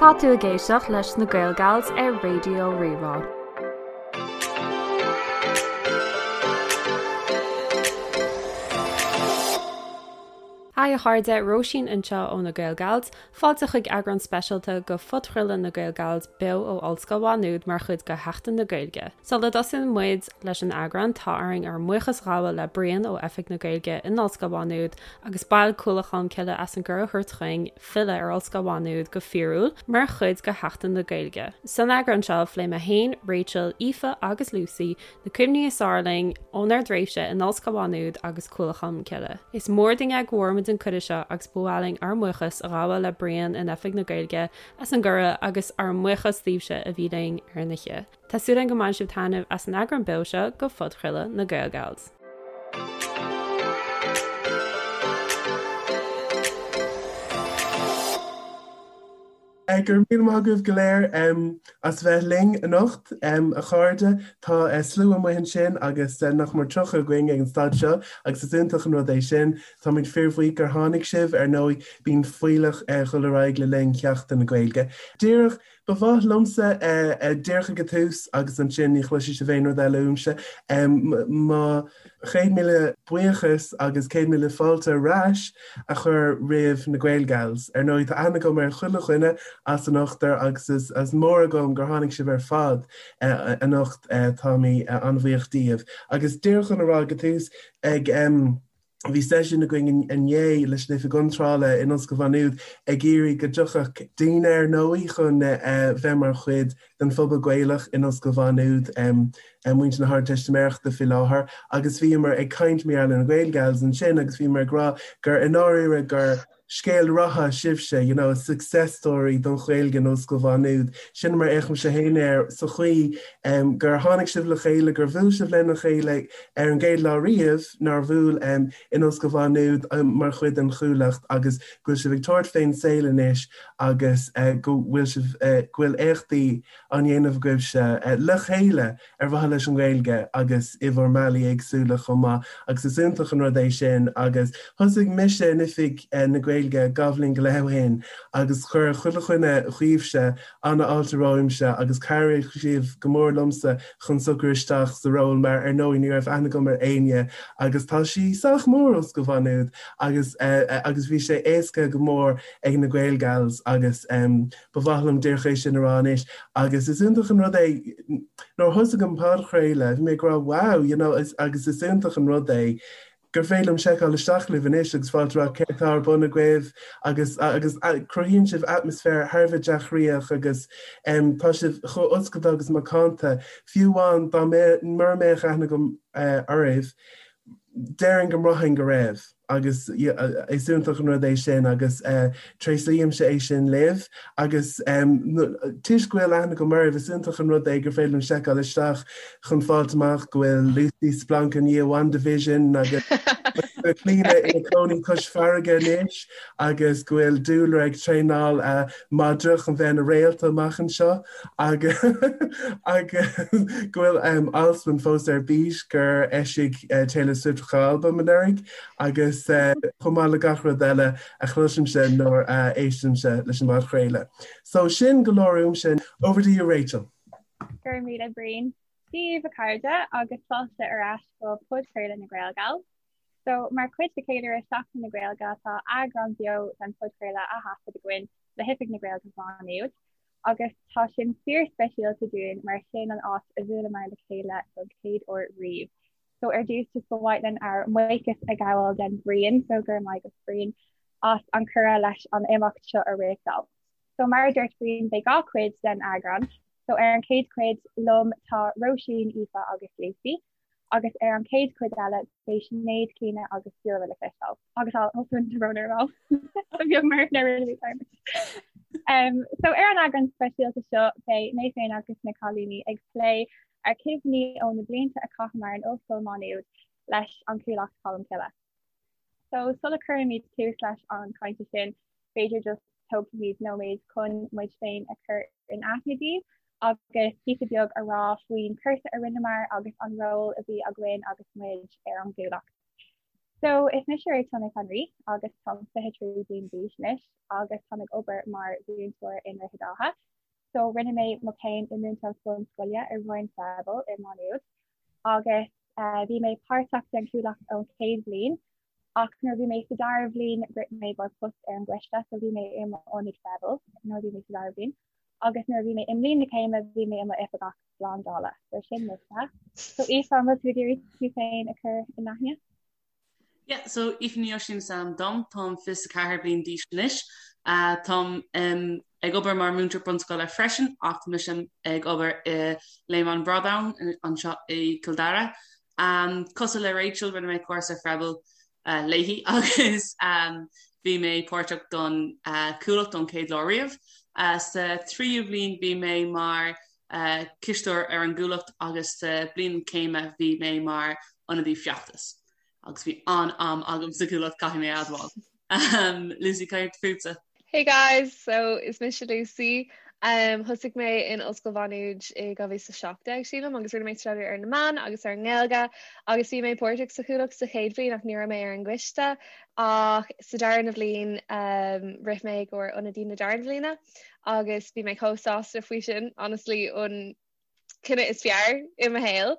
Tá tú ag éisteacht leis na Gaelgals ar Raidió Rí-Rá. Haigh a chairde, Róisín anseo ó na Gaelgals. Fáilte chuig eagrán speisialta de phodchraoladh na Gaelgals beo ó Ollscoil Mhá Nuad mar chuid de Sheachtain na Gaeilge. Sula dtosaíonn muid leis an eagrán, tá orainn ár mbuíochas a ghabháil le Brian ó Oifig na Gaeilge in Ollscoil Mhá Nuad agus baill Cuallacht Cholmcille as an gcuireadh a thabhairt chugainn filleadh ar Ollscoil Mhá Nuad go fíorúil mar chuid de Sheachtain na Gaeilge. San eagrán seo, phléigh mé féin, Rachel, Aoife agus Lucy na cuimhní is fearr linn ónár dtréimhse in Ollscoil Mhá Nuad agus Cuallacht Cholmcille. Is mór dúinn é go bhfuair muid an cuireadh seo agus ba mhaith linn ár mbuíochas a ghabháil le Brian in Oifig na Gaeilge as an gcuireadh agus ár mbuíochas daoibhse a bhí linn ar an oíche. Tá súil againn go mbainfidh sibh taitneamh as an eagrán beo seo de phodchraoladh na Gaelgals. Go raibh míle maith agaibh go léir as bheith linn anocht, a chairde. Tá slua amuigh ansin agus nach mór 30 againn ag an staid seo agus is iontach an rud é sin. Táimid fíorbhuíoch gur tháinig sibh. Ar ndóigh, bíonn fuílleach ag dul ar aghaidh le linn Sheachtain na Gaeilge. Díreach Ba mhaith liomsa díreach ag an tús agus ansin ní chloisfidh sibh aon rud eile uaimse, mo chéad míle buíochas agus 100,000 fáilte ar ais a chur roimh na Gaelgals. Ar ndóigh tá aithne agam ar chuile dhuine as an ochtar agus is mór agam gur tháinig sibh ar fad anocht, táimid an-bhuíoch díobh. Agus díreach chun a rá ag an tús, ag. Bhí seisiún againn inné leis an Oifig Iontrála in Ollscoil Mhá Nuad ag iarraidh go dtiocfadh daoine ar ndóigh chun bheith mar chuid den phobal Gaelach in Ollscoil Mhá Nuad, muintir na hArdteistiméireachta faoi láthair agus bhíomar ag caint mar gheall ar na Gaelgals ansin agus bhíomar ag rá gur i ndáiríre gur scéal ratha sibhse, you know, a success story don Ghaeilge in Ollscoil Mhá Nuad. Sin mar a fhéachaimse féin air, sa chaoi gur tháinig sibh le chéile, gur bhuail sibh lena chéile ar an gcéad lá riamh nár bhuail in Ollscoil Mhá Nuad mar chuid den Chuallacht agus go bhfuil sibh ag tabhairt fén saol anois agus go bhfuil sibh, go bhfuil éachtaí á ndéanamh agaibhse le chéile ar mhaithe leis an nGaeilge agus i bhur mbealaí éagsúla chomh maith agus is iontach an rud é sin agus thosaigh mise in Oifig na Gaeilge dhá bhliain go leith ó shin agus chuir chuile dhuine dhaoibhse an-fháilte romhamsa agus chabhraigh sibh go mór liomsa chun socrú isteach sa ról mar ar ndóigh ní raibh aithne agam ar éinne agus tá sí sách mór Ollscoil Mhá Nuad agus agus bhí sé éasca go mór ag na Gaelgals agus Ba mhaith liom díreach é sin a rá anois agus is iontach an rud é nuair a thosaigh an podchraoladh bhí mé ag rá wow you know agus is iontach an rud é gur féidir liom seiceáil isteach libh anois agus fáilt rá céard atá ar bun agaibh agus agus cruthaíonn sibh atmaisféar thar a bheith dea-chroíoch agus tá sibh chomh oscailte agus macánta fiú amháin dá mbeadh mura mbeadh aithne agam oraibh déarfainn go mbraithfinn go raibh. agus is iontach an rud é sin agus tréaslaímse é sin libh agus toisc go bhfuil aithne agam oraibh is iontach an rud é gur féidir liom seiceáil isteach chun fáilt amach go bhfuil Lucy splanc i ndiaidh WandaVision agus Clíona ina cónaí cois farraige anois agus go bhfuil Dúlra ag traenáil madra chun bheith ina réalta amach anseo agus agus go bhfuil Alswyn fós ar bís gur eisigh Taylor Swift a albam anuraidh agus chomh maith le gach rud eile a chloisimse nuair a éistimse leis an bpodchraoladh. So sin go leor uaimse. Over to you Rachel. Go raibh míle Brian. Dia daoibh a chairde agus fáilte ar ais go podchraoladh na Gaelgals. So mar chuid de cheiliúradh Seachtain na Gaeilge tá eagrán beo den phodchraoladh á thaifead againn le hOifig na Gaeilge Mhá Nuad. Agus tá sin fíor-speisialta dúinn mar sin an áit a bhuaileamar le chéile don chéad uair riamh. So ar dtús just ba mhaith linn ár mbuíochas a ghabháil den Bhrian, so go raibh maith agat Brian as an cuireadh leis an imeacht seo a réachtáil. So mar a dúirt Brian beidh 2 chuid den eagrán, so ar an chéad chuid liom tá Róisín, Aoife agus Lucy. Agus ar an chéad chuid eile beidh Sinéad, Clíona agus Dúlra le cloisteáil. Agus Alswyn tá brón orm Ba bheag mar na rinne mé dearmad. Um, so ar an eagrán speisialta seo beidh mé féin agus na cailíní ag plé ár gcuimhní ó na blianta a chaitheamar in Ollscoil Mhá Nuad leis an Chuallacht Cholmcille. So sula cuirimid tús leis an cainte sin, b'fhéidir just tógfaimid nóiméad chun muid féin a chur in aithne daoibh agus píosa beag a rá faoin cúrsa a rinneamar agus an ról a bhí againn agus muid ar an gCuallacht. So is mise Rachel Nic an Rí agus táim 23 bliain d'aois anois agus táim ag obair mar mhúinteoir i nDroichead Átha. So rinne mé mo chéim i múinteoireacht bunscoile i Roinn Freibil i Má Nuad agus eh, bhí mé páirteach den Chuallacht ón chéad bhliain ach nuair bhí mé sa dara bhliain rith mé i gcomhair post ar an gcoiste so bhí mé i m'ionadaí Freibil nuair bhí mé sa dara bhliain agus nuair bhí mé i mbliain na céime bhí mé i m'oifigeach slándála. So sin mise. So Aoife, an bhfuil tú ag iarraidh tú féin a chur in aithne? Yeah, so Aoife Ní Oisín is ainm dom, táim 24 bliain d'aois anois. Uh, táim um, ag obair mar múinteoir bunscoile freisin ach tá mise ag obair i Léim an Bhradáin anseo i Cill Dara. Um, cosúil le Rachel rinne mé cúrsa Freibil uh, léi agus um, bhí mé páirteach don uh, Chuallacht ón chéad lá riamh. Uh, sa tríú bhliain bhí mé mar cisteoir ar an gCuallacht agus sa bliain céime bhí mé mar ionadaí feachtais agus bhí an-am agam sa Chuallacht caithfidh mé a admháil. Um, Lucy cad fútsa? Hey guys, so is mise Lucy. Um, thosaigh mé in Ollscoil Mhá Nuad i 2017 sílim agus rinne mé staidéar ar na meáin agus ar an nGaeilge agus bhí mé páirteach sa Chuallacht sa chéad bhliain ach ní raibh mé ar an gcoiste ach sa darna bhliain um, rith mé i gcomhair ionadaí na darna bhliana agus bhí mé chomh sásta faoi sin, honestly, an cinneadh is fearr i mo shaol.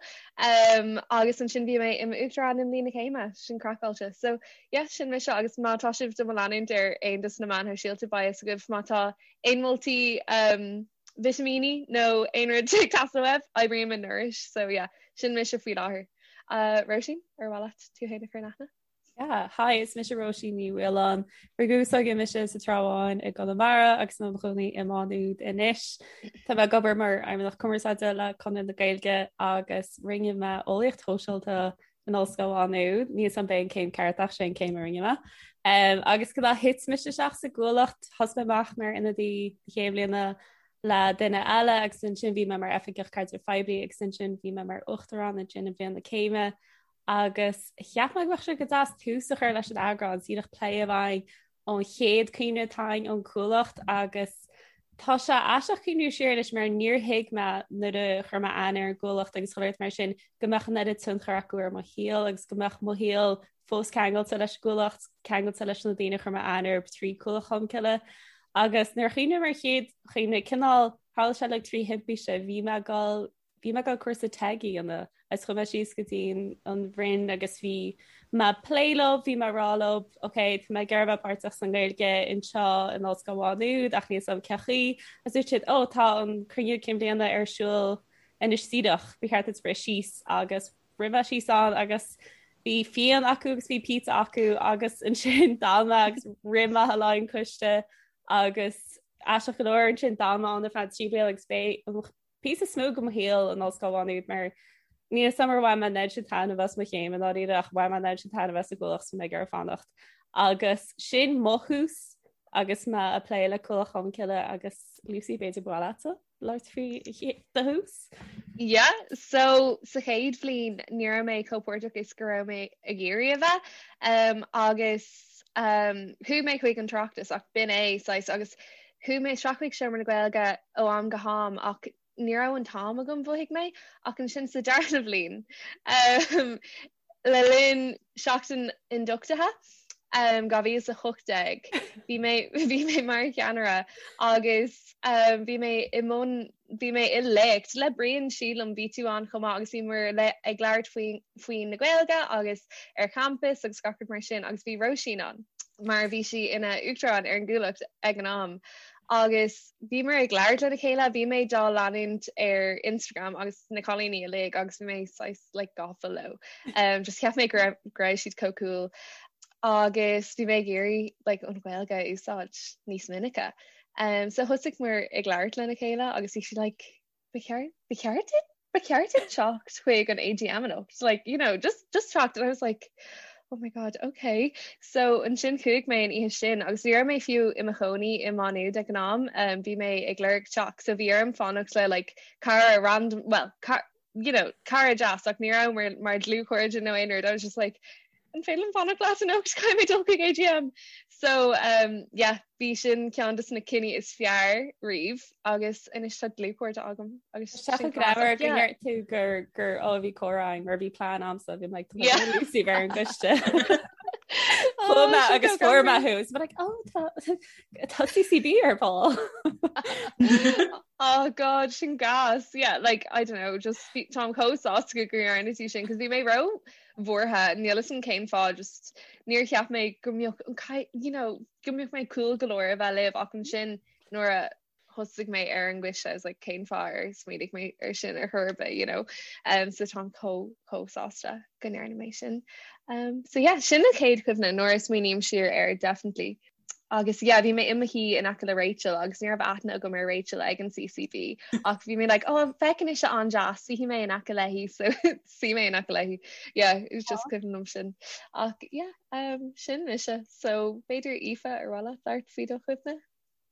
Um, agus ansin bhí mé i m'uachtarán i mbliain na céime, sin craiceáilte. So yeah, sin mise agus má tá sibh do mo leanúint ar aon dos na meáin shóisialta beidh fhios agaibh má tá aon moltaí um, vitimíní nó aon rud ag teastáil uaibh, oibrím i Nourish, so yeah, sin mise faoi láthair. Uh, Róisín, ar mhaith leat tú féin a chur in aithne? Yeah, hi, is mise Róisín Ní Mhaoláin. Rugadh s'againne mise sa Trá Bháin i gConamara agus i mo chónaí i Má Nuad anois. Tá mé ag obair mar Fheidhmeannach Cumarsáide le Conradh na Gaeilge agus rinne mé eolaíocht shóisialta in Ollscoil Mhá Nuad. Níl 'fhios a'm ab é an céim ceart ach sé an céim a rinne mé. Um, agus go thit mise isteach sa gCuallacht, thosaigh mé amach mar ionadaí na chéad bhliana le duine eile agus ansin bhí mé mar oifigeach caidrimh phoiblí agus ansin bhí mé mar uachtarán ansin i mbliain na céime. Agus cheap mé go mbeadh sé go deas tús a chur leis an eagrán, díreach plé a bheith againn ón chéad cuimhne atá againn ón Chuallacht agus tá sé aisteach cuimhniú siar anois mar níor thuig mé nuair a chuir mé aithne ar an gCuallacht agus chuile shórt mar sin go mbeadh an oiread tionchar acu ar mo shaol agus go mbeadh mo shaol fós ceangailte leis an gCuallacht, ceangailte leis na daoine a chuir mé aithne orthu trí Cuallacht Cholmcille. Agus nuair a chuimhním ar chéad chuimhne cineál tharla sé like trí thimpiste bhí mé ag dul Bhí mé ag dul cúrsa TEG a dhéanamh agus chuaigh mé síos go dtí an Roinn agus bhí mé ag plé leo, bhí mé ag rá leo, ok, tá mé ag iarraidh bheith páirteach sa nGaeilge anseo in Ollscoil Mhá Nuad ach níl 'fhios a'm cén chaoi. Agus dúirt siad, oh, tá an cruinniú cinn bhliana ar siúl anois díreach, ba cheart duit rith síos agus rith mé síos ann agus bhí fíon acu agus bhí pizza acu agus ansin d'fhan mé agus rith mé le an coiste agus aisteach go leor ansin d'fhan mé ann ar feadh 3 bliana agus b'é an píosa is mó de mo shaol in Ollscoil Mhá Nuad mar níl 'fhios a'm ar bhain mé an oiread sin taitneamh as mo chéim i ndáiríre ach bhain mé an oiread sin taitneamh as an gCuallacht so mé ag iarraidh fanacht. Agus sin mo thús agus mé ag plé le Cuallacht Cholmcille agus Lucy b'fhéidir ba mhaith leatsa labhairt faoi do thús? Yeah, so sa chéad bhliain ní raibh mé chomh páirteach is go raibh mé ag iarraidh a bheith um, agus um, chuaigh mé chuig an tOireachtas ach b'in é saghas agus Chuaigh mé isteach chuig Seomra na Gaeilge ó am go ham ach ní raibh an t-am agam, mhothaigh mé, ach ansin sa darna bhliain, le linn seachtain ionduchtaithe 2018, bhí mé bhí mé mar cheannaire agus bhí mé i mbun bhí mé i léacht le Brian sílim, bhí tú ann chomh maith agus bhíomar ag labhairt faoi faoi na Gaeilge agus ar champas agus gach rud mar sin agus bhí Róisín ann mar bhí sí ina uachtarán ar an gCuallacht ag an am agus bhíomar ag labhairt lena chéile, bhí mé dá leanúint ar Instagram agus na cailíní uilig agus bhí mé saghas like gafa leo. Um, just cheap mé go raibh go raibh siad chomh cool agus bhí mé ag iarraidh like an Ghaeilge a úsáid níos minice. Um, so thosaigh muid ag labhairt lena chéile agus bhí sí like ba cheart ba cheart duit ba cheart duit teacht chuig an AGM anocht like you know just just teacht and I was like oh my god okay so ansin chuaigh mé an oíche sin agus ní raibh mé fiú i mo chónaí i Má Nuad ag an am um, bhí mé ag lorg teach so bhí orm fanacht le like cara random well car, you know cara deas ach ní raibh mar mar dlúthchairde nó aon rud I was just like an féidir liom fanacht leat anocht caithfidh mé dul chuig AGM. So um, yeah, bhí sin ceann de na cinní is fearr riamh agus anois tá dlúthchairde agam agus Tá sé greannmhar go ndeir tú gur gur ó bhí comhrá mar bhí plean a'msa bhí like, Lucy ar an gcoiste. Chuaigh mé agus fuair mé thú is like oh tá tá CCB ar ball. Oh God sin gas yeah like I don't know just táim chomh sásta go ndearna tú sin cos bhí mé ró bhuartha níl fhios agam cén fáth just níor cheap mé go mbeadh an you know go mbeadh mé cool go leor a bheith libh ach ansin nuair a thosaigh mé ar an gcoiste I was like cén fáth ar smaoinigh mé ar sin ar chor ar bith you know um, so táim chomh chomh sásta go ndearna mé sin um, so yeah sin an chéad chuimhne nuair a smaoiním siar air definitely agus yeah bhí mé i mo shuí in aice le Rachel agus ní raibh aithne agam ar Rachel ag an CCB ach bhí mé like oh feiceann ise an-deas suífidh mé in aice léi so suigh mé in aice léi yeah it was just cuimhin liom sin ach yeah um, sin mise so b'fhéidir Aoife ar mhaith leat labhairt faoi do chuimhne?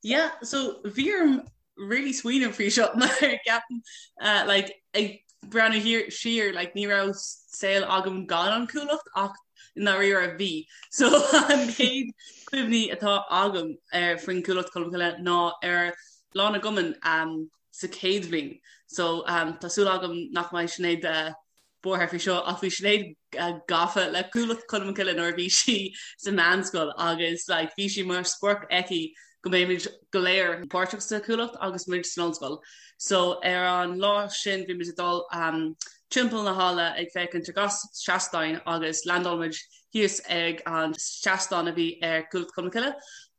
Yeah, so bhí orm really smaoineamh faoi seo mar ceapaim uh, like, ag breathnú thiar siar like, ní raibh saol agam gan an Chuallacht ach i ndáiríre bhí. So an chéad cuimhní atá agam ar faoin Chuallacht Cholmcille ná ar Lá na gCumann um, sa chéad bhliain. So um, tá súil agam nach mbeidh Sinéad uh, buartha faoi seo ach bhí Sinéad gafa le Cuallacht Cholmcille nuair a bhí sí sa mheánscoil agus like bhí sé mar sprioc aici go mbeimid go léir páirteach sa Chuallacht agus muid san ollscoil. So ar an lá sin bhí muid ag dul um, timpeall na halla ag féachaint ar gach seastán agus landáil muid thíos ag an seastán a bhí ar Cuallacht Cholmcille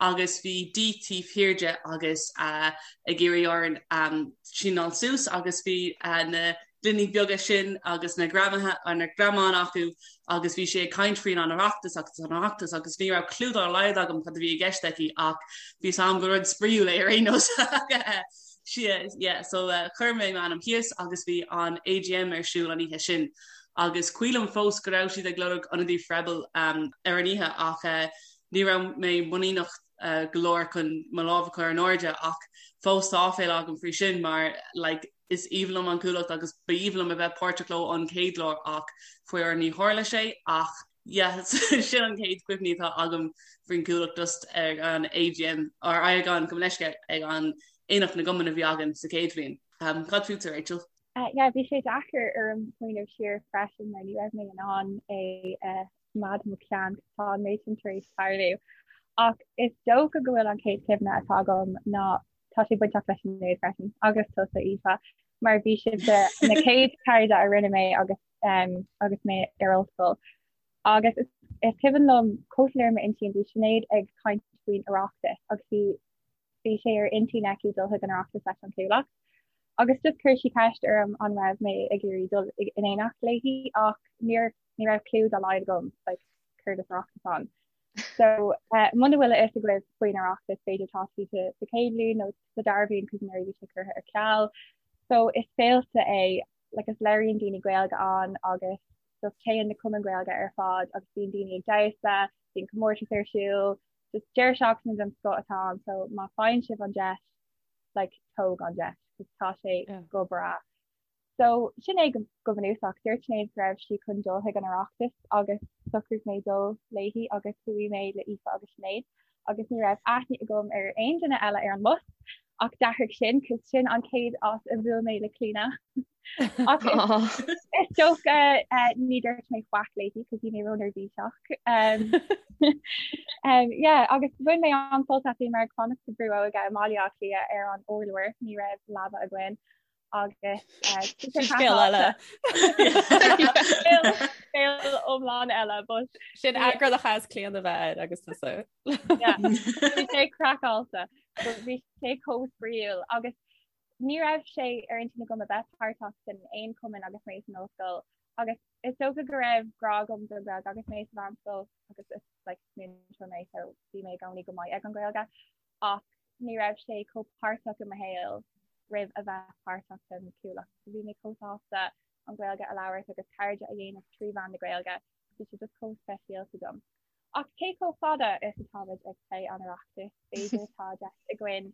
agus bhí Dee taobh thiar de agus uh, ag iarraidh orainn um, síneáil suas agus bhí uh, na gloiní beaga sin agus na greamaithe na greamáin acu agus bhí sí ag caint faoin an Oireachtas agus an Oireachtas agus ní raibh clue dá laghad agam cad a bhí i gceist aici ach bhí a fhios agam gur rud spraíúil é ar aon nós. Yeah, so uh, chuir mé m'ainm thíos agus bhí an AGM ar siúl an oíche sin. Agus cuimhin liom fós go raibh siad ag lorg ionadaí Freibil um, ar an oíche ach uh, ní raibh mé muiníneach uh, go leor chun mo lámh a chur in airde ach fós tá áiféala agam faoi sin mar like, Is aoibhinn liom an Chuallacht agus ba aoibhinn liom a bheith páirteach leo an chéad lá ach faraor ní tharla sé ach yeah sin an chéad chuimhní atá agam faoin Chuallacht just ag an AGM or ag an gabh mo leithscéal ag an Aonach na gCumann a bhí againn sa chéad bhliain. Um, cad fútsa Rachel? Uh, yeah, bhí sé deacair orm smaoineamh siar freisin mar ní raibh mé in ann é uh, choimeád i mo cheann tá an méid sin tar éis tarlú. Ach is dócha go bhfuil an chéad chuimhne atá agam ná tá sé bainteach le Sinéad freisin agus tusa Aoife mar bhí sibhse na chéad cairde a rinne mé agus um, agus mé ar ollscoil. Agus is, is cuimhin liom chomh soiléir m'intinn bhí Sinéad ag caint faoin Oireachtas agus bhí bhí sé ar intinn aici dul chuig an Oireachtas leis an Chuallacht. Agus just chuir sí ceist orm an raibh mé ag iarraidh dul in éineacht léi ach níor ní raibh clue dá laghad agam like, céard is Oireachtas ann. So uh, muna bhfuil a fhios agaibh faoin Oireachtas b'fhéidir tá sibh sa chéad bhliain nó sa dara bhliain cos anuraidh bhí sé curtha ar ceal. So is féilte é like is labhraíonn daoine Gaeilge ann agus just téann na cumainn Gaeilge ar fad agus bíonn daoine ag damhsa, bíonn comórtas ar siúl, just deireadh seachtaine den scoth atá ann so má faigheann sibh an deis like tóg an deis cos tá sé yeah. go breá. So, sin é go bunúsach. Dúirt Sinéad go raibh sí chun dul chuig an Oireachtas agus shocraigh mé dul léi agus chuaigh mé le Aoife agus Sinéad agus ní raibh aithne agam ar aon duine eile ar an mbus ach d'athraigh sin cos sin an chéad áit a bhuail mé le Clíona. Ach is dócha ní dúirt mé faic léi cos bhí mé róneirbhíseach. Um, um, yeah, agus bhain mé an-sult as bhíomar ag fanacht sa Bhrú Óige i mBaile Átha Cliath ar an urlár, ní raibh leaba againn. agus scéal eile scéal iomlán eile but sin eagrán a chaithfeas Clíona bheith air agus tusa. Bhí sé craiceáilte bhí sé chomh spraíúil agus ní raibh sé ar intinn agam a bheith páirteach san aon chumann agus mé san ollscoil agus is dócha go raibh grá agam don Ghaeilge agus mé sa mheánscoil agus is like múinteoir mé so bhí mé i gcónaí go maith ag an Ghaeilge ach ní raibh sé chomh páirteach i mo shaol roimh a bheith páirteach den Chuallacht. So bhí mé chomh sásta an Ghaeilge a labhairt agus cairde a dhéanamh trí mheán na Gaeilge. Bhí sé just chomh speisialta dom. Ach cé chomh fada is atáimid ag plé an Oireachtais, b'fhéidir tá deis againn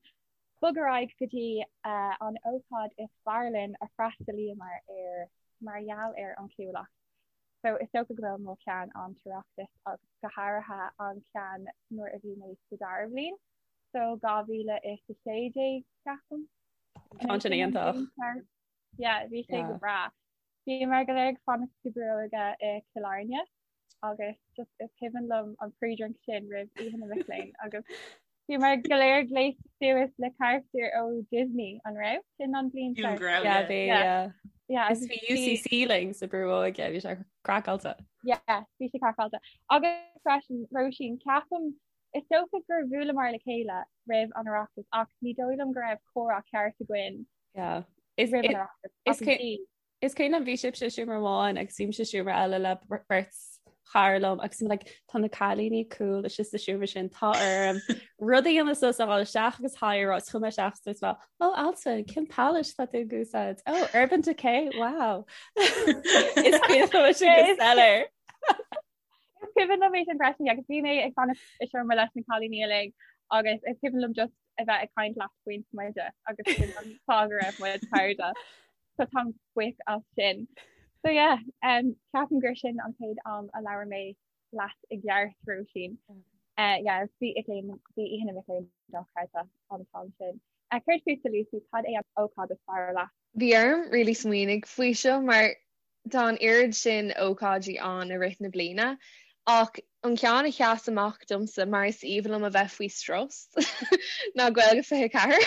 bog ar aghaidh go dtí an ócáid is fearr linn a freastalaíomar ar mar gheall ar an Chuallacht. So is dócha go bhfuil mo cheann an tOireachtas agus go háirithe an ceann nuair a bhí mé sa dara bhliain. So 2016 ceapaim. Tá sin iontach. Yeah, bhí sé go breá. Bhíomar go léir ag fanacht sa Bhrú Óige i Cill Airne. agus just is cuimhin liom an pre-drink sin roimh Oíche na Mic Léinn agus bhíomar go léir gléasta suas le carachtair ó Disney an raibh? Sin an bhliain Sílim go raibh, yeah. Bhí, yeah. Yeah, Is bhí UCC linn sa brú óige, bhí sé craiceáilte. Yeah, bhí sé craiceáilte. Agus freisin, Róisín, ceapaim, is dócha gur bhuaileamar le chéile roimh an Oireachtas ach ní dóigh liom go raibh comhrá ceart againn Yeah. Is, roimh an Oireachtas. is Ach bhí. Is cuimhin liom bhí sibhse i seomra amháin agus bhí mise i seomra eile le beirt chara liom agus like, tá na cailíní cool istigh sa seomra sin tá orm rud a dhéanamh suas a dhul isteach agus hi a rá is chuaigh mé isteach is dúirt mé oh Altan cén palette atá tú ag úsáid oh Urban Decay wow Is cuimhin liom sin go soiléir. Is cuimhin liom é sin freisin agus bhí mé ag fanacht i seomra leis na cailíní uilig agus is cuimhin liom just a bheith ag caint leat faoin smideadh agus sin an fáth go raibh muid cairde. So táim buíoch as sin. So yeah, um, ceapaim gur sin an chéad am a labhair mé leat i gceart Róisín. Uh, yeah, bhí bhí Oíche na Mic Léinn dochreidte an t-am sin. Uh, Céard fútsa Lucy, cad é an ócáid is fearr leat? Bhí orm really smaoinigh faoi seo mar Tá an oiread sin ócáidí ann i rith na bliana, ach an ceann a sheas amach domsa, mar is aoibhinn liom a bheith faoi strus, ná Gaeilge 24.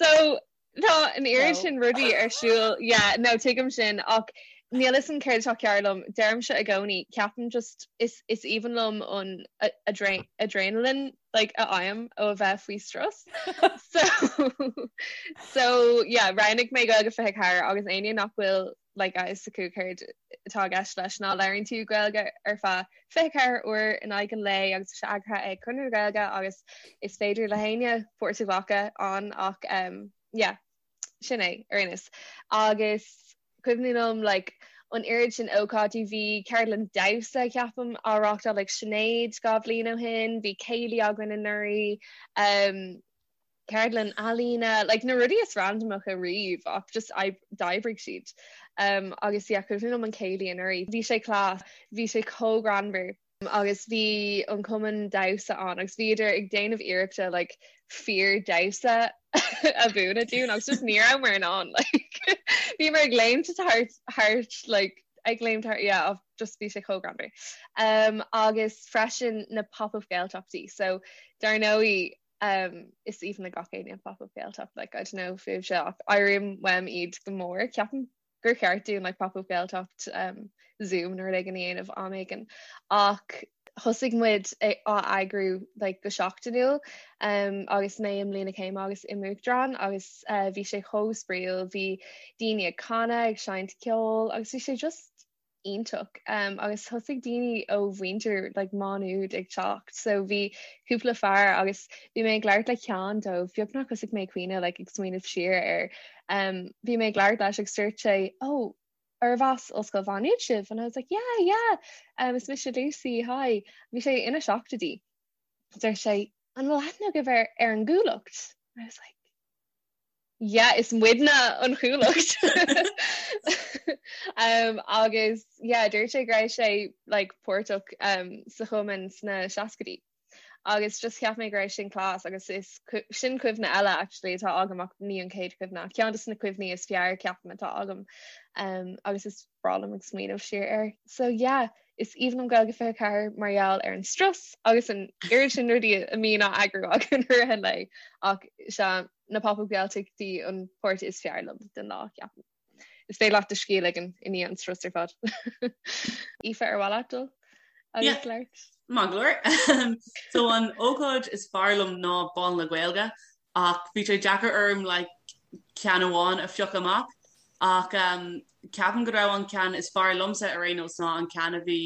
So, tá an oiread sin rudaí ar siúl, yeah, no, tuigim sin, ach níl 'fhios a'm céard atá cearr liom, deirimse i gcónaí, ceapaim just, is, is aoibhinn liom an adrenaline like a fhaighim ó a bheith faoi strus. So so yeah, roghnaigh mé Gaeilge 24 agus éinne nach bhfuil like a fhios acu céard atá i gceist leis ná labhraíonn tú Gaeilge ar feadh 24 uair in aghaidh an lae agus tá sé eagraithe ag Conradh na Gaeilge agus is féidir le héinne páirt a ghlacadh ann ach um, yeah, sin é ar aon nós. Agus cuimhin liom like an oiread sin ócáidí, bhí ceardlann damhsa ceapaim á reáchtáil ag Sinéad 2 bhliain ó shin, bhí céilí againn anuraidh, um, ceardlann ealaíne, like na rudaí is randamacha riamh ach just d'oibrigh siad. Um, agus yeah, cuimhin liom an céilí anuraidh, bhí sé class, bhí sé chomh greannmhar. agus bhí an cumann damhsa ann agus bhíodar ag déanamh iarrachta like fíor damhsa a mhúineadh dúinn agus just ní rabhamar in ann like bhíomar ag léimt thart thart like ag léimt thart yeah just bhí sé chomh greannmhar. Um, agus freisin na pop-up Gaeltachtaí so dar ndóigh um, is aoibhinn le gach éinne pop-up Gaeltacht like I don't know fúibhse ach airím uaim iad go mór ceapaim gur cheart dúinn like pop-up Gaeltacht um, Zoom nó rud éigin a dhéanamh am éigin ach thosaigh muid á eagrú like, go seachtainiúil um, agus mé i mbliain na céime agus i m'uachtarán agus uh, bhí sé chomh spraíúil, bhí daoine ag canadh, ag seinnt ceoil agus bhí sé just iontach um, agus thosaigh daoine ó mhuintir like, Má Nuad ag teacht so bhí cúpla fear agus bhí mé ag labhairt le ceann dóibh beagnach thosaigh mé ag caoineadh like, ag smaoineamh siar air um, bhí mé ag labhairt leis agus dúirt sé oh arbh as Ollscoil Mhá Nuad sibh and I was like yeah yeah um, is mise Lucy hi bhí sé ina seachtóidí dúirt sé an bhfuil aithne agaibh ar, ar an gCuallacht I was like yeah is muidne an Chuallacht um, agus yeah dúirt sé go raibh sé like páirteach um, sa chumann sna seascaidí agus just cheap mé go raibh sin class agus is sin cuimhne eile actually atá agam ach ní an chéad chuimhne ach ceann de na cuimhní is fearr ceapaim atá agam um, agus is breá liom ag smaoineamh siar air. So yeah, is aoibhinn liom Gaeilge 24 mar gheall ar an strus agus an oiread sin rudaí a mbíonn á eagrú againn i rith an lae ach sea na pop-up Gaeltachtaí an páirt is fearr liom den lá ceapaim. Is féidir leat do scíth a ligean i ndiaidh an strus ar fad. Aoife ar mhaith leat dul agus labhairt? Maith go leor. So an ócáid is fearr liom ná Bál na Gaeilge ach bhí sé deacair orm like ceann amháin a phiocadh amach ach um, ceapaim go raibh an ceann is fearr liomsa ar aon nós ná an ceann a bhí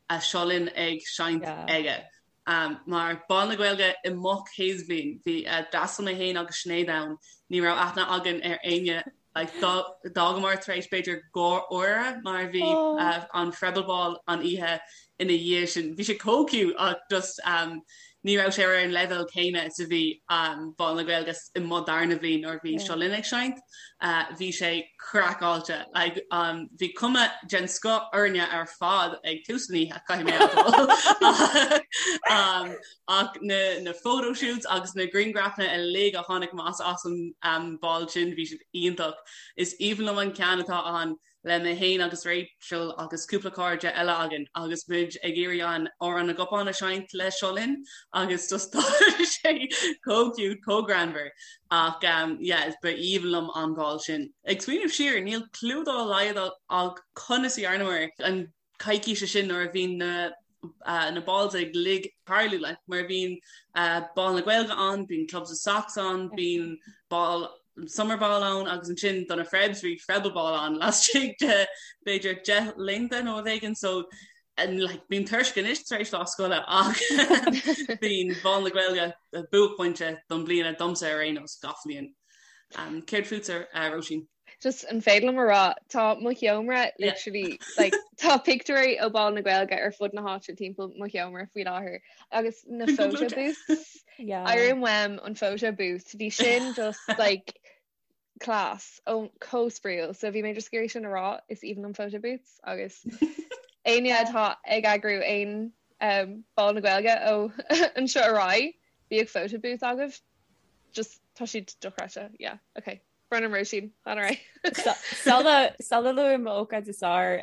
a Seo Linn ag seinnt yeah. aige. Um, mar Bál na Gaeilge i mo chéad bhliain bhí uh, d'fhreastail mé féin agus Sinéad ann ní raibh aithne againn ar éinne Like, d'fhágamar tar éis b'fhéidir 2 uaire mar bhí oh. uh, an Freible Ball an oíche ina dhiaidh sin. Bhí sé chomh cute ach just um, ní raibh sé ar an leibhéal céanna is a bhí um, Bál na Gaeilge i mo darna bhliain nuair bhí Seo Linn ag seinnt. Uh, bhí sé craiceáilte. Like, um, bhí cuma den scoth orainne ar fad ag tús an oíche caithfidh mé a um, Ach na na photo shoots agus na grianghrafanna uilig a tháinig amach as an um, ball sin bhí siad iontach. Is aoibhinn liom an ceann atá ann. le mé féin agus Rachel agus cúpla cairde eile againn agus muid ag iarraidh an Amhrán na gCupán a seinnt le Seo Linn agus just tá sé chomh cute, chomh greannmhar ach um, yeah, ba aoibhinn liom an ball sin. Ag smaoineamh siar, níl clue dá laghad agam conas a dhearnamar an coicíse sin nuair a bhí na na balls uilig ag tarlú like mar bhíonn ball na Gaeilge ann, bíonn Clubs of Socks ann, bíonn ball summer ball ann agus ansin do na Frebs bhí Frebble ball ann laistigh de b'fhéidir 10 laethanta nó rud éigin so like bím tuirseach anois tar éis lá scoile ach bíonn ball na Gaeilge buaicphointe don bliana domsa ar aon nós gach bhliain. Um, céard fútsa uh, Róisín? Just an féidir liom a rá tá mo sheomra literally like tá pictiúirí ó Ball na Gaeilge ar fud na háite timpeall mo sheomra faoi láthair agus na photo booths Airim uaim an photo booth bhí sin just like class ó chomh spraíúil so bhí mé just ag iarraidh sin a rá is aoibhinn liom photo booths agus éinne atá ag eagrú aon um, Ball na Gaeilge ó anseo ar aghaidh bíodh photo booth agaibh just tá siad dochreidte yeah okay Brón orm Róisín, lean ar aghaidh. Sula sula luaim m'ócáid is fearr,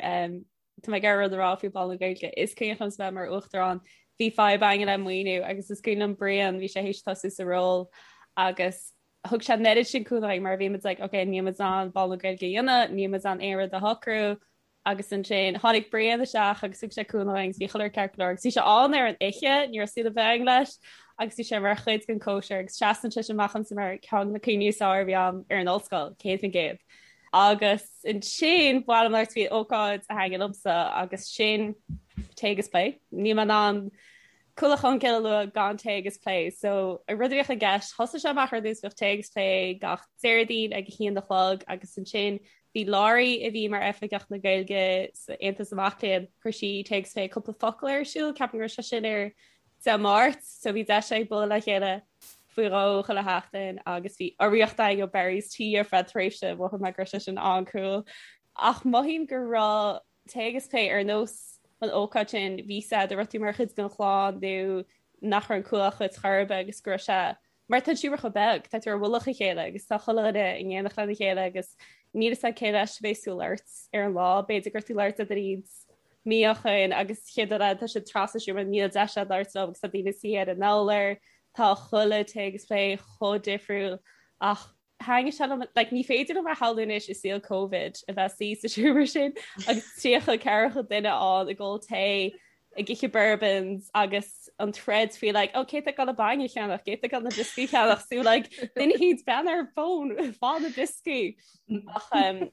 tá mé ag iarraidh rud a rá faoi Bhall na Gaeilge. Is cuimhin liomsa bheith mar uachtarán, bhí fadhb againn le maoiniú agus is cuimhin liom Brian, bhí sé théis tosú sa ról agus thug sé an oiread sin cúnamh dúinn mar bhí muid like ok níl muid in ann Ball na Gaeilge a dhéanamh, níl muid in ann aon rud a shocrú, Agus ansin tháinig Brian isteach agus thug sé cúnamh dúinn agus bhí chuile rud ceart go leor agus bhí sé ann ar an oíche, ní raibh súil ar bith againn leis agus bhí sé mar chuid den cóisir agus seasann sé amach domsa mar ceann de na cuimhní is fearr a bhí agam ar an ollscoil, 100%. Agus ansin ba mhaith liom labhairt faoi ócáid a thaitin liomsa agus sin Tae agus Plé. Níl mé in ann Cuallacht Cholmcille a lua gan Tae agus Plé. So an rud a bhíodh i gceist, thosaigh sé amach ar dtús bhíodh Tae agus Plé gach Déardaoin ag a haon a chlog agus ansin bhí Laurie a bhí mar Oifigeach na Gaeilge sa Aontas na Mac Léinn, chuir sí Tae agus Plé cúpla focal ar siúl, ceapaim go raibh sé sin ar Dé Máirt, so bhí deis ag bualadh le chéile faoi dhó chuile sheachtain agus bhí urraíocht againn ó Barry's Tea ar feadh tréimhse, mhothaigh mé go raibh sé sin an-cool. Ach mothaím go raibh Tae agus Plé ar nós an ócáid sin, bhí sé de raibh tú mar chuid den chlann nó nach raibh an Cuallacht dhuit chor ar bith agus go raibh sé mar tá an seomra chomh beag, tá tú ar mhullach a chéile agus tá chuile dhuine in éineacht lena chéile agus níl fhios agat cé leis a bheas tú ag labhairt ar an lá, b'fhéidir go raibh tú ag labhairt le duine éicint mí ó shoin agus chéad rud eile tá siad trasna an seomra níl deis agat labhairt leo agus tá daoine suí ar an urlár, tá chuile Tae agus Plé chomh difriúil ach Thaitnigh sé liom, like, ní féidir liom a shamhlú anois i saol Covid a bheith suí sa seomra sin agus 30 40 duine ann ag ól tae, ag ithe bourbons agus an troid faoi like, oh, cé tá ag dul an bainne a cheannach, cé tá ag dul na brioscaí a cheannach, so like, duine éicint breathnaigh ar fón, faigh na brioscaí. Ach um,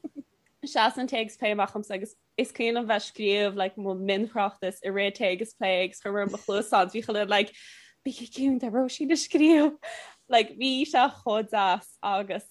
seasann Tae agus Plé amach dhomsa agus Is cuimhin liom bheith scríobh like mo mhionthráchtas i rith Tae agus Plé agus chuir mé mo chluasáin bhí chuile like bígí ciúin tá Róisín ag scríobh like bhí sé chomh deas agus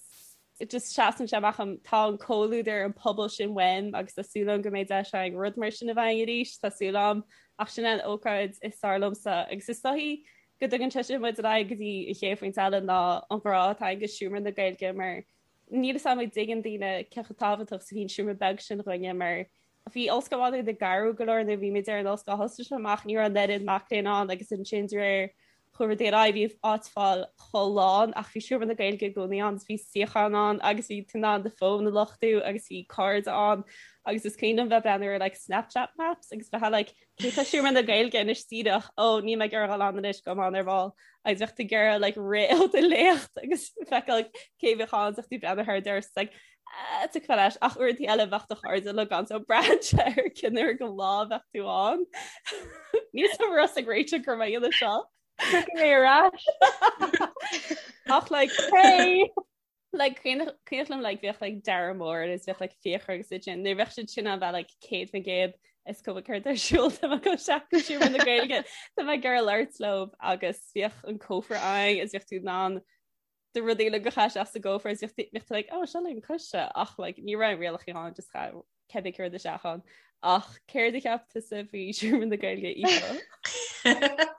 just seasann sé amach dhom tá an comhluadar an pobal sin uaim agus tá súil agam go mbeidh deis againn rud mar sin a bheith againn arís tá súil agam ach sin an ócáid is fearr liomsa agus is dóichí go dtugann sé sin muid ar aghaidh go dtí an chéad phointe eile ná an grá atá againn do Seomra na Gaeilge mar Níl fhios agam an dtuigeann daoine cé chomh tábhachtach is a bhíonn seomra beag sin dhúinne mar bhí Ollscoil Mhá Nuad ag athrú go leor nuair a bhí muid ar an ollscoil thosaigh sé amach ní raibh an oiread mac léinn ann agus ansin de réir chuaigh rudaí ar aghaidh bhí áit fáil chomh lán ach bhí seomra na Gaeilge i gcónaí ann bhí suíocháin ann agus bhí tú in ann do fón a luchtú agus bhí cairde ann agus is cuimhin liom bheith breathnú ar like Snapchat maps agus bheith like cé tá seomra na Gaeilge anois díreach ó níl mé ag iarraidh dul ann anois gabhfaidh mé ann ar ball agus bheadh tú ag iarraidh like rith ó do léacht agus feiceáil cé bheadh ann bheadh tú breathnú thar doras like ah, tiocfaidh leis ach uaireanta eile bheadh do chairde le gan so braitheann sé ar cén uair den lá bheadh tú ann. Níl fhios agam ag réiteach gur mé dhéanamh seo. Tiocfaidh mé ar ais. Ach like hey! Like cuimhin liom like bheadh like Dara Mór agus bheadh like Fiachra agus iad sin nuair bheadh siad sin ann bheadh like 100% is cuma céard ar siúl tá mé ag dul isteach go seomra na Gaeilge tá mé ag iarraidh labhairt leo agus bheadh an cófra ann is bheadh tú in ann do rudaí le go chaith isteach sa gcófra is bheadh tú like oh seo le coiste ach like ní raibh rialacha ann just chaith cibé céard isteach ann. Ach céard a cheap tusa faoi Seomra na Gaeilge Aoife?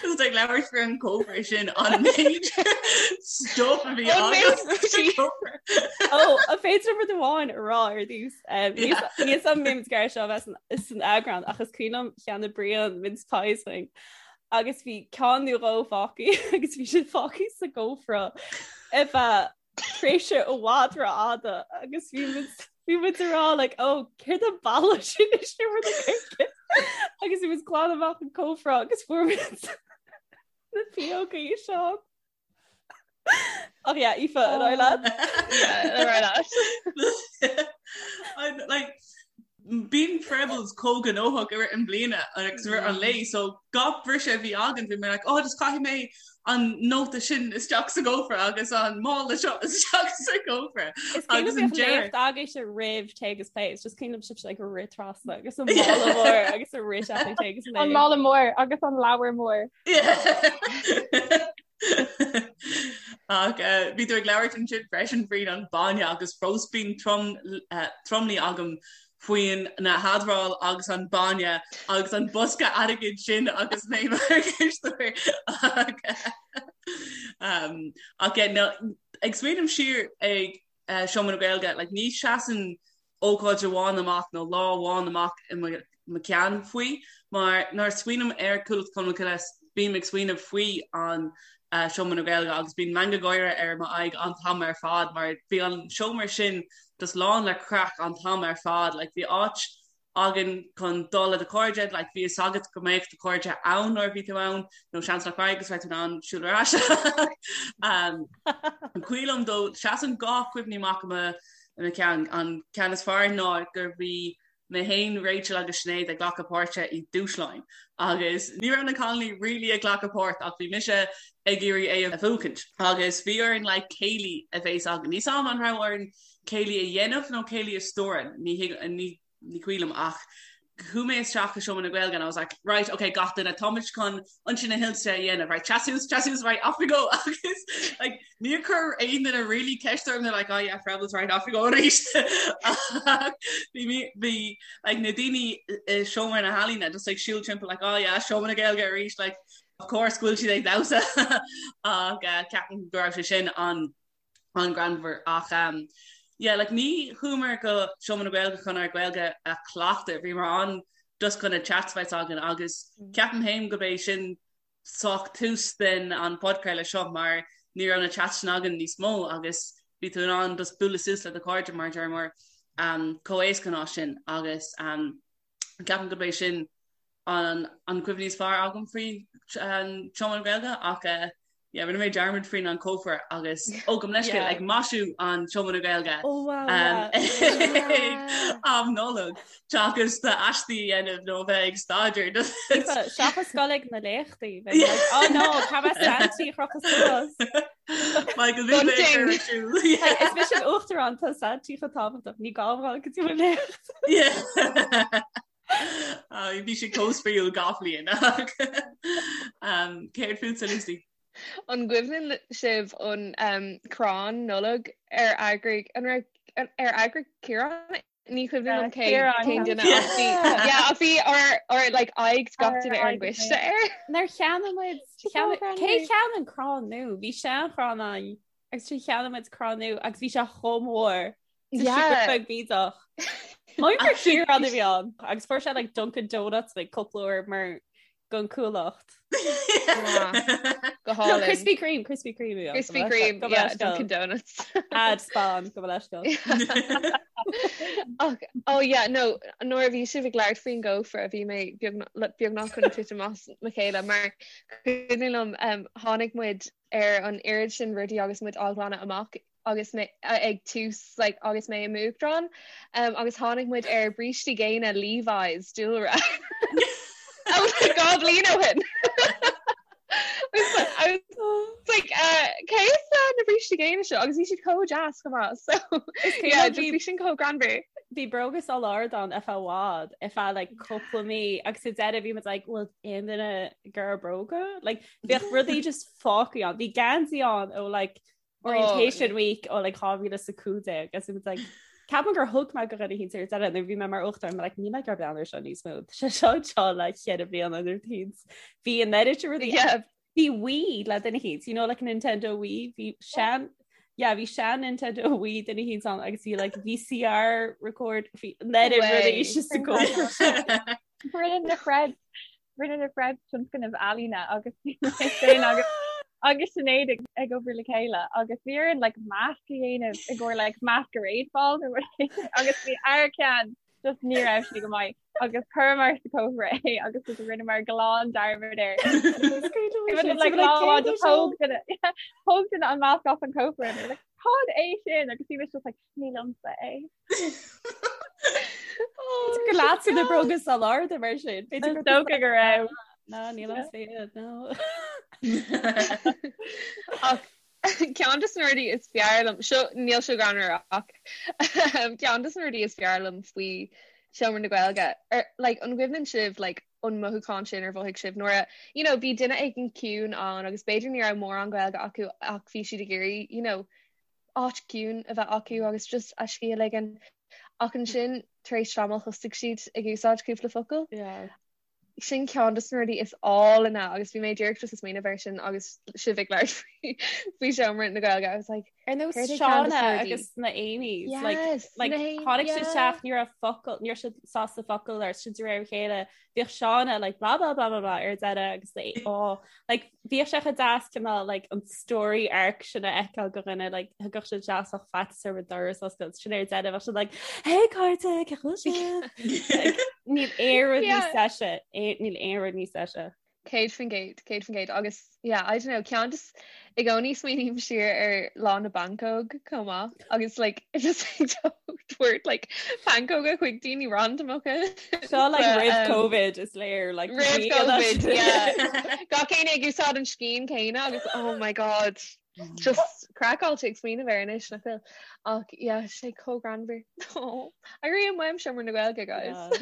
Just ag labhairt faoi an cófra sin an méid stuff a bhí agat. Ó, an féidir liom rud amháin a rá ar dtús. Níl fhios agam an mbeidh muid seo bheith san eagrán ach is cuimhin liom cheannaigh Brian mince pies dúinn. Agus bhí ceann nó dhó fágtha agus bhí siad fágtha sa gcófra ar feadh tréimhse i bhfad rófhada agus bhí muid. Bhí muid ag rá like oh céard an boladh sin i seomra na Gaeilge agus bhí muid ag glanadh amach an cófra agus fuair muid na piógaí seo. Ach yeah, Aoife, ar aghaidh leat. Yeah, ar aghaidh leat. I'm like bíonn Prebbles chomh gnóthach i rith an bliana agus i rith an lae so gach briseadh a bhí againn bhí mé like oh just caithfidh mé an nóta sin isteach sa gcófra agus an mála seo isteach sa gcófra. Is cuimhin liom bhíodh léacht agaibhse roimh Tae agus Plé, it's just cuimhin liom sibhse like rith trasna agus an mála mór agus a rith sé Tae agus Plé. An mála mór agus an leabhar mór. Ach bhí tú ag labhairt ansin freisin faoin an bainne agus fós bíonn tromluí agam faoin na hadráil agus an bainne agus an bosca airgid sin agus mé mar chisteoir ach ag smaoineamh siar ag Seomra na Gaeilge like ní seasann ócáid amháin amach nó lá amháin amach i mo cheann faoi mar nuair a smaoiním ar Cuallacht Cholmcille bím ag smaoineamh faoi an Seomra na Gaeilge agus bíonn meangadh gáire ar m'aghaidh an t-am ar fad mar bhí an seomra sin just lán le craic an t-am ar fad like bhí áit againn chun dul le do chairde, like bhí fhios agat go mbeadh do chairde ann nuair a bhí tú ann, nó seans nach raibh agus raibh tú in ann siúl ar ais. Um, an cuimhin liom dó, seasann dhá cuimhní amach i mo, i mo cheann. An ceann is fearr ná gur bhí mé féin, Rachel agus Sinéad ag glacadh páirte i dúshláin agus ní raibh na cailíní really ag glacadh páirt ach bhí mise ag iarraidh é a bhuachaint agus bhí orainn like céilí a bheas againn. Níl 's a'm an raibh orainn céilí a dhéanamh nó céilí a stiúradh, ní ní ní cuimhin liom ach chuaigh mé isteach i Seomra na Gaeilge and I was like right okay gach duine táimid chun Ionsaí na hInse a dhéanamh right seas suas seas suas right off we go agus like níor chuir aon duine really ceist orm they're like oh yeah Prebbles right off we go arís bhí mé bhí like na daoine i Seomra na hEalaíne just like siúl timpeall like oh yeah Seomra na Gaeilge arís like of course go bhfuil siad ag damhsa ach uh, ceapaim go raibh sé sin an an-ghreannmhar ach um, yeah, like, ní chuamar go Seomra na Gaeilge chun ár Gaeilge a chleachtadh, bhíomar ann just chun na chats a bheith againn agus mm. ceapaim féin go b'é sin sách tús den an podchraoladh seo mar ní raibh na chats sin againn níos mó agus bhí tú in ann just bualadh suas le do chairde mar deir mar um, chomh éasca ná sin agus um, ceapaim go b'é sin an an cuimhní is fearr agam faoi an Seomra na Gaeilge ach eh, yeah, rinne mé dearmad faoin an cófra agus ó gabh mo leithscéal ag maisiú an Seomra na Gaeilge oh, wow, um, yeah. am Nollag seachas d'aistí a dhéanamh nó bheith ag staidéar. Seachas dul ag na léachtaí oh no cá mbeidh Santaí a chrochadh suas. Michael bhí mé ar siúl. Is mise an uachtarán tá Santaí chomh tábhachtach ní gá dul go dtí mo léacht. Yeah. Bhí sé chomh spraíúil gach bliain. Céard fútsa Lucy? An gcuimhneann sibh an um, crann Nollag ar eagraigh an raibh ar eagraigh Ciarán? Ní cuimhin liom cé cén duine ach bhí yeah, ach bhí ár ár like aghaidh gach duine ar an gcoiste air. Nár cheannaigh muid cé cheannaigh an crann nua? Bhí seanchrann ann agus sin cheannaigh muid crann nua agus bhí sé chomh mór. Yeah. Beag bídeach. Mar gur Ciarán a bhí ann agus fuair sé like Dunkin Donuts like cúpla uair mar gon cuallacht. Go hálainn. Krispy Kreme, Krispy Kreme. a bhí ann. Krispy Kreme, yeah, Dunkin Donuts. Ad spam gabh mo leithscéal. Ach, oh yeah, no, nuair a bhí sibh ag labhairt faoin gcófra bhí mé beagnach chun titim as mo chéile mar cuimhin liom um, tháinig muid ar an oiread sin rudaí agus muid á ghlanadh amach agus mé ag tús like, agus mé i m'uachtarán um, agus tháinig muid ar brístí géine Levi's dúlra. Dhá bhliain ó shin. I was like, uh, cé as uh, na brístí géine seo agus bhí siad chomh deas chomh maith so yeah, just bhí sin chomh greannmhar. Bhí bróga san ardán ar feadh i bhfad ar feadh like cúpla mí agus sa deireadh bhí muid like bhfuil aon duine ag iarraidh bróga like bheadh rudaí just fágtha ann bhí geansaí ann ó like orientation oh. week ó like 2015 agus bhí like Ceapaim gur thug mé go dhuine eicínt ar deireadh nuair bhí mé mar uachtarán like níl mé ag breathnú air seo níos mó sé seo seo le ceithre bliana nuair bhí an oiread sin rudaí bhí Wii le duine eicínt you know like Nintendo Wii bhí sean yeah bhí sean Nintendo Wii duine eicínt ann agus bhí like VCR record bhí an oiread rudaí sa gcófra Rinne na Prebs Rinne na Prebs tionscnamh ealaíne agus bhí mé féin agus. agus Sinéad ag obair le chéile agus bhí orainn like masc a dhéanamh i gcomhair like masquerade ball nó rud éigin agus bhí ár ceann just ní raibh sé go maith agus chuireamar sa cófra é agus just rinneamar glan dearmad air. Like lá amháin just thóg duine thóg duine an masc as an cófra and like cad é sin agus bhí mise just like ní liomsa é. Gur leatsa na bróga sal arda mar sin. Is dócha go raibh. No, níl liomsa iad, no. Ach ceann de na rudaí is fearr liom, seo níl seo greannmhar ach ceann de na rudaí is fearr liom faoi Seomra na Gaeilge, ar like an gcuimhneann sibh like an mothúchán sin ar mhothaigh sibh nuair a you know bhí duine éigin ciúin ann agus b'fhéidir ní raibh mórán Gaeilge acu ach bhí siad ag iarraidh you know áit ciúin a bheith acu agus just a scíth a ligean ach ansin tar éis tamaill thosaigh siad ag úsáid cúpla focal. Yeah. Sin ceann de na rudaí is álainne agus bhí mé díreach just ag smaoineamh air sin agus sibh ag labhairt faoi faoi seomra na Gaeilge. I was like, Ar nós Céard é ceann de Shauna na rudaí? agus na Amy's like, Yes, like, na Amy- tháinig siad yeah. isteach ní raibh focal ní raibh siad sásta focal ar sin de réir a chéile bhíodh Shauna like blah blah blah blah blah ar deireadh agus the oh like bhíodh sé chomh deas cineál like an story arc sin a fheiceáil go dhuine like thugadh siad deas ach faitíos orthu doras a oscailt sin ar deireadh bheadh siad like hey cairde cén chaoi a bhfuil sibh Like, níl aon rud níos Yeah. deise níl aon rud níos deise. 100%, 100% agus yeah, I don't know, ceann just i gcónaí smaoiním siar ar lá na bpancóg chomh maith agus like just tabhairt like pancóga chuig daoine randamacha. Seo like But, roimh um, COVID is léir like Roimh ní fhada COVID, sin. yeah. Gach éinne ag úsáid an scian céanna agus oh my god, just craiceáilte ag smaoineamh air anois nach bhfuil. Ach yeah, sé chomh greannmhar. Oh, airím uaim Seomra na Gaeilge, guys.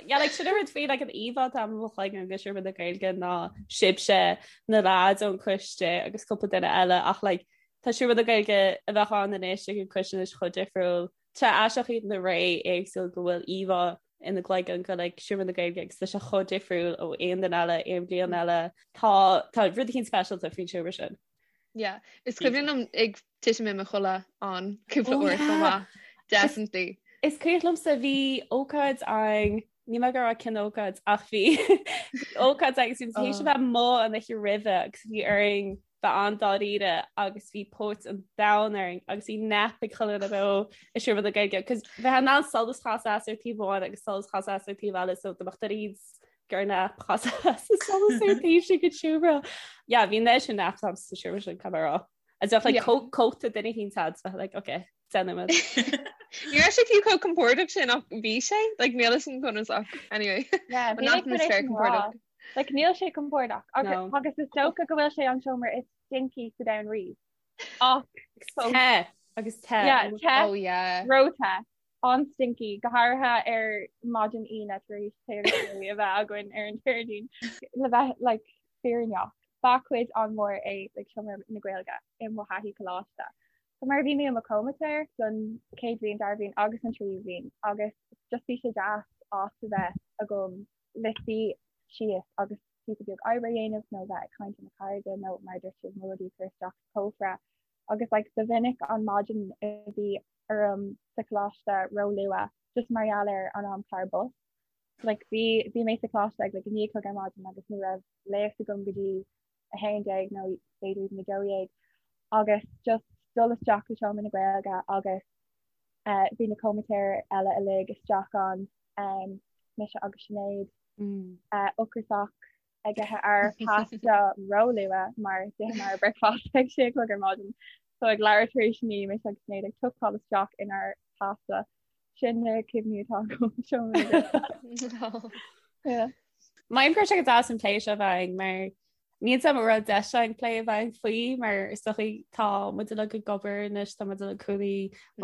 Yeah, like sin an rud faoi like an íomhá atá i mo chloigeann de Seomra na Gaeilge ná sibhse na lads ón coiste agus cúpla duine eile ach like tá Seomra na Gaeilge a bheadh ann anois ag an coiste anois chomh difriúil. Tá aisteach iad na ré éagsúil go bhfuil íomhá ina gcloigeann go like Seomra na Gaeilge agus tá sé chomh difriúil ó aon duine eile, aon bhliain eile. Tá tá rud eicínt speisialta faoin seomra sin. Yeah, is cuimhin liom ag titim i mo chodladh ann cúpla Oh, uair chomh yeah. maith. Definitely. Is cuimhin liomsa bhí ócáid ann níl mé ag rá cén ócáid ach bhí ócáid agus bhí tar éis a bheith amuigh an oíche roimhe agus bhí orainn bheith an-dáiríre agus bhí póit an domhain orainn agus bhí nap ag chuile dhuine beo i Seomra na Gaeilge cos bheith in ann solas chasadh as ar taobh amháin agus solas chasadh as ar taobh eile so do mbeadh duine gur nap chasadh as an solas ar taobh sin den seomra. Yeah, bhí an sin nap sa seomra sin caithfidh mé a rá. Agus bheadh like cóta duine eicínt a'd bheith like okay déanfaimid. Ní raibh sé fiú chomh compordach sin ach bhí sé like níl a fhios agam conas ach anyway. Yeah, An bhí mé chun atmaisféar é sin a rá. compordach. Like níl sé compordach agus No. agus is dócha go bhfuil sé an seomra is stinky sa domhan riamh. Ach fós. Te agus te. Yeah, te, Oh yeah. ró-the, an-stinky, go háirithe ar maidin Aoine tar éis céilí a bheith againn ar an Déardaoin. Le bheith like fírinneach, ba chuid an-mhór é like seomra na Gaeilge i mo thaithí coláiste. So mar bhí mé i mo chomaitéir don chéad bhliain, dara bhliain agus an tríú bhliain agus just bhí sé deas áit a bheith agam le suí síos agus píosa beag oibre a dhéanamh nó bheith ag caint le mo chairde nó mar a dúirt sibh mo rudaí a chur isteach sa chófra agus like ba mhinic an maidin a bhí orm sa choláiste ró-luath just mar gheall ar an amchlár bus. Like bhí bhí mé sa choláiste ag like 9 a chlog ar maidin agus ní raibh léacht agam go dtí 11 nó b'fhéidir even 12 agus just dul isteach go Seomra na Gaeilge agus eh, bhí na comaitéir eile uilig isteach ann, um, mise agus Sinéad Mm. eh, ocrasach ag ithe ár pasta ró-luath mar d'itheamar ár bricfeasta ag sé a chlog ar maidin. So ag leathuair tar éis 9 mise agus Sinéad ag tucáil isteach inár pasta. Sin na cuimhní atá agam Seomra na Gaeilge. Yeah. Mothaím go raibh sé go deas an plé seo a bheith againn mar níl a fhios agam an raibh deis againn plé a bheith againn faoi mar is dóichí tá muid uilig ag obair anois tá muid uilig cónaí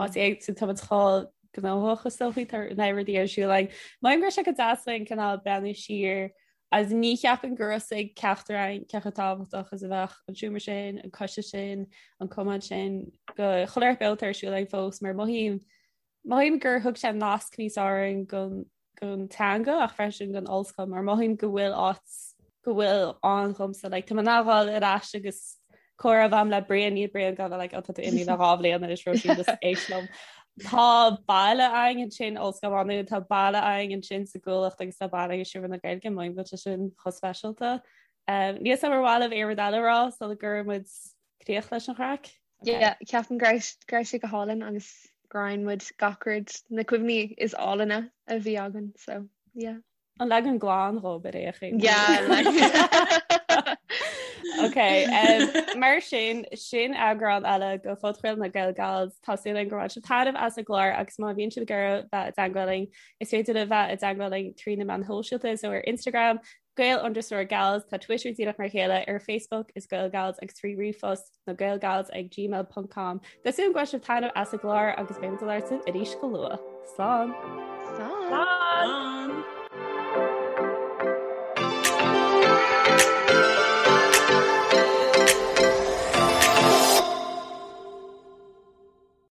áit éagsúil tá muid chomh gnóthach is dóichí tá na rudaí ar siúl againn. Mothaím go raibh sé go deas againn cineál breathnú siar agus ní cheapaim go raibh a fhios ag ceachtar againn cé chomh tábhachtach is a bheadh an seomra sin, an coiste sin, an cumann sin go chuile shórt beo atá ar siúl againn fós mar mothaím mothaím gur thug sé nasc níos fearr orainn gon gon teanga ach freisin gon ollscoil mar mothaím go bhfuil áit go bhfuil ann dhomsa like tá mé in ann dhul ar ais agus comhrá a bheith agam le Brian níl Brian gan like oh tá tú imithe le 2 bhliain anois Róisín just éist liom. Tá baile againn ansin Ollscoil Mhá Nuad tá baile againn ansin sa gCuallacht agus tá baile againn i Seomra na Gaeilge mothaím go bhfuil sé sin chomh speisialta. Níl a fhios agam ar mhaith libh aon rud eile a rá sula gcuireann muid críoch leis an chraic? Yeah, ceapaim go raibh go raibh sé go hálainn agus gur roinn muid gach rud na cuimhní is álainne a bhí againn so yeah. An leagan glan dhób ar aon chaoi. Yeah, like. Ok, um, mar sin sin eagrán eile de phodchraoladh na Gael Gals Tá súil againn gur bhain sibh taitneamh as an gclár agus má bhíonn sibh ag iarraidh bheith i dteagmháil linn is féidir libh bheith i dteagmháil linn trí na meáin shóisialta so ar Instagram Gael underscore Gals tá Twitter díreach mar a chéile ar Facebook is Gael Gals agus trí ríomhphost na Gaelgals ag gmail ponc com. Tá súil agam go bhain sibh taitneamh as an gclár agus beidh muid ag labhairt libh arís go luath. Slán!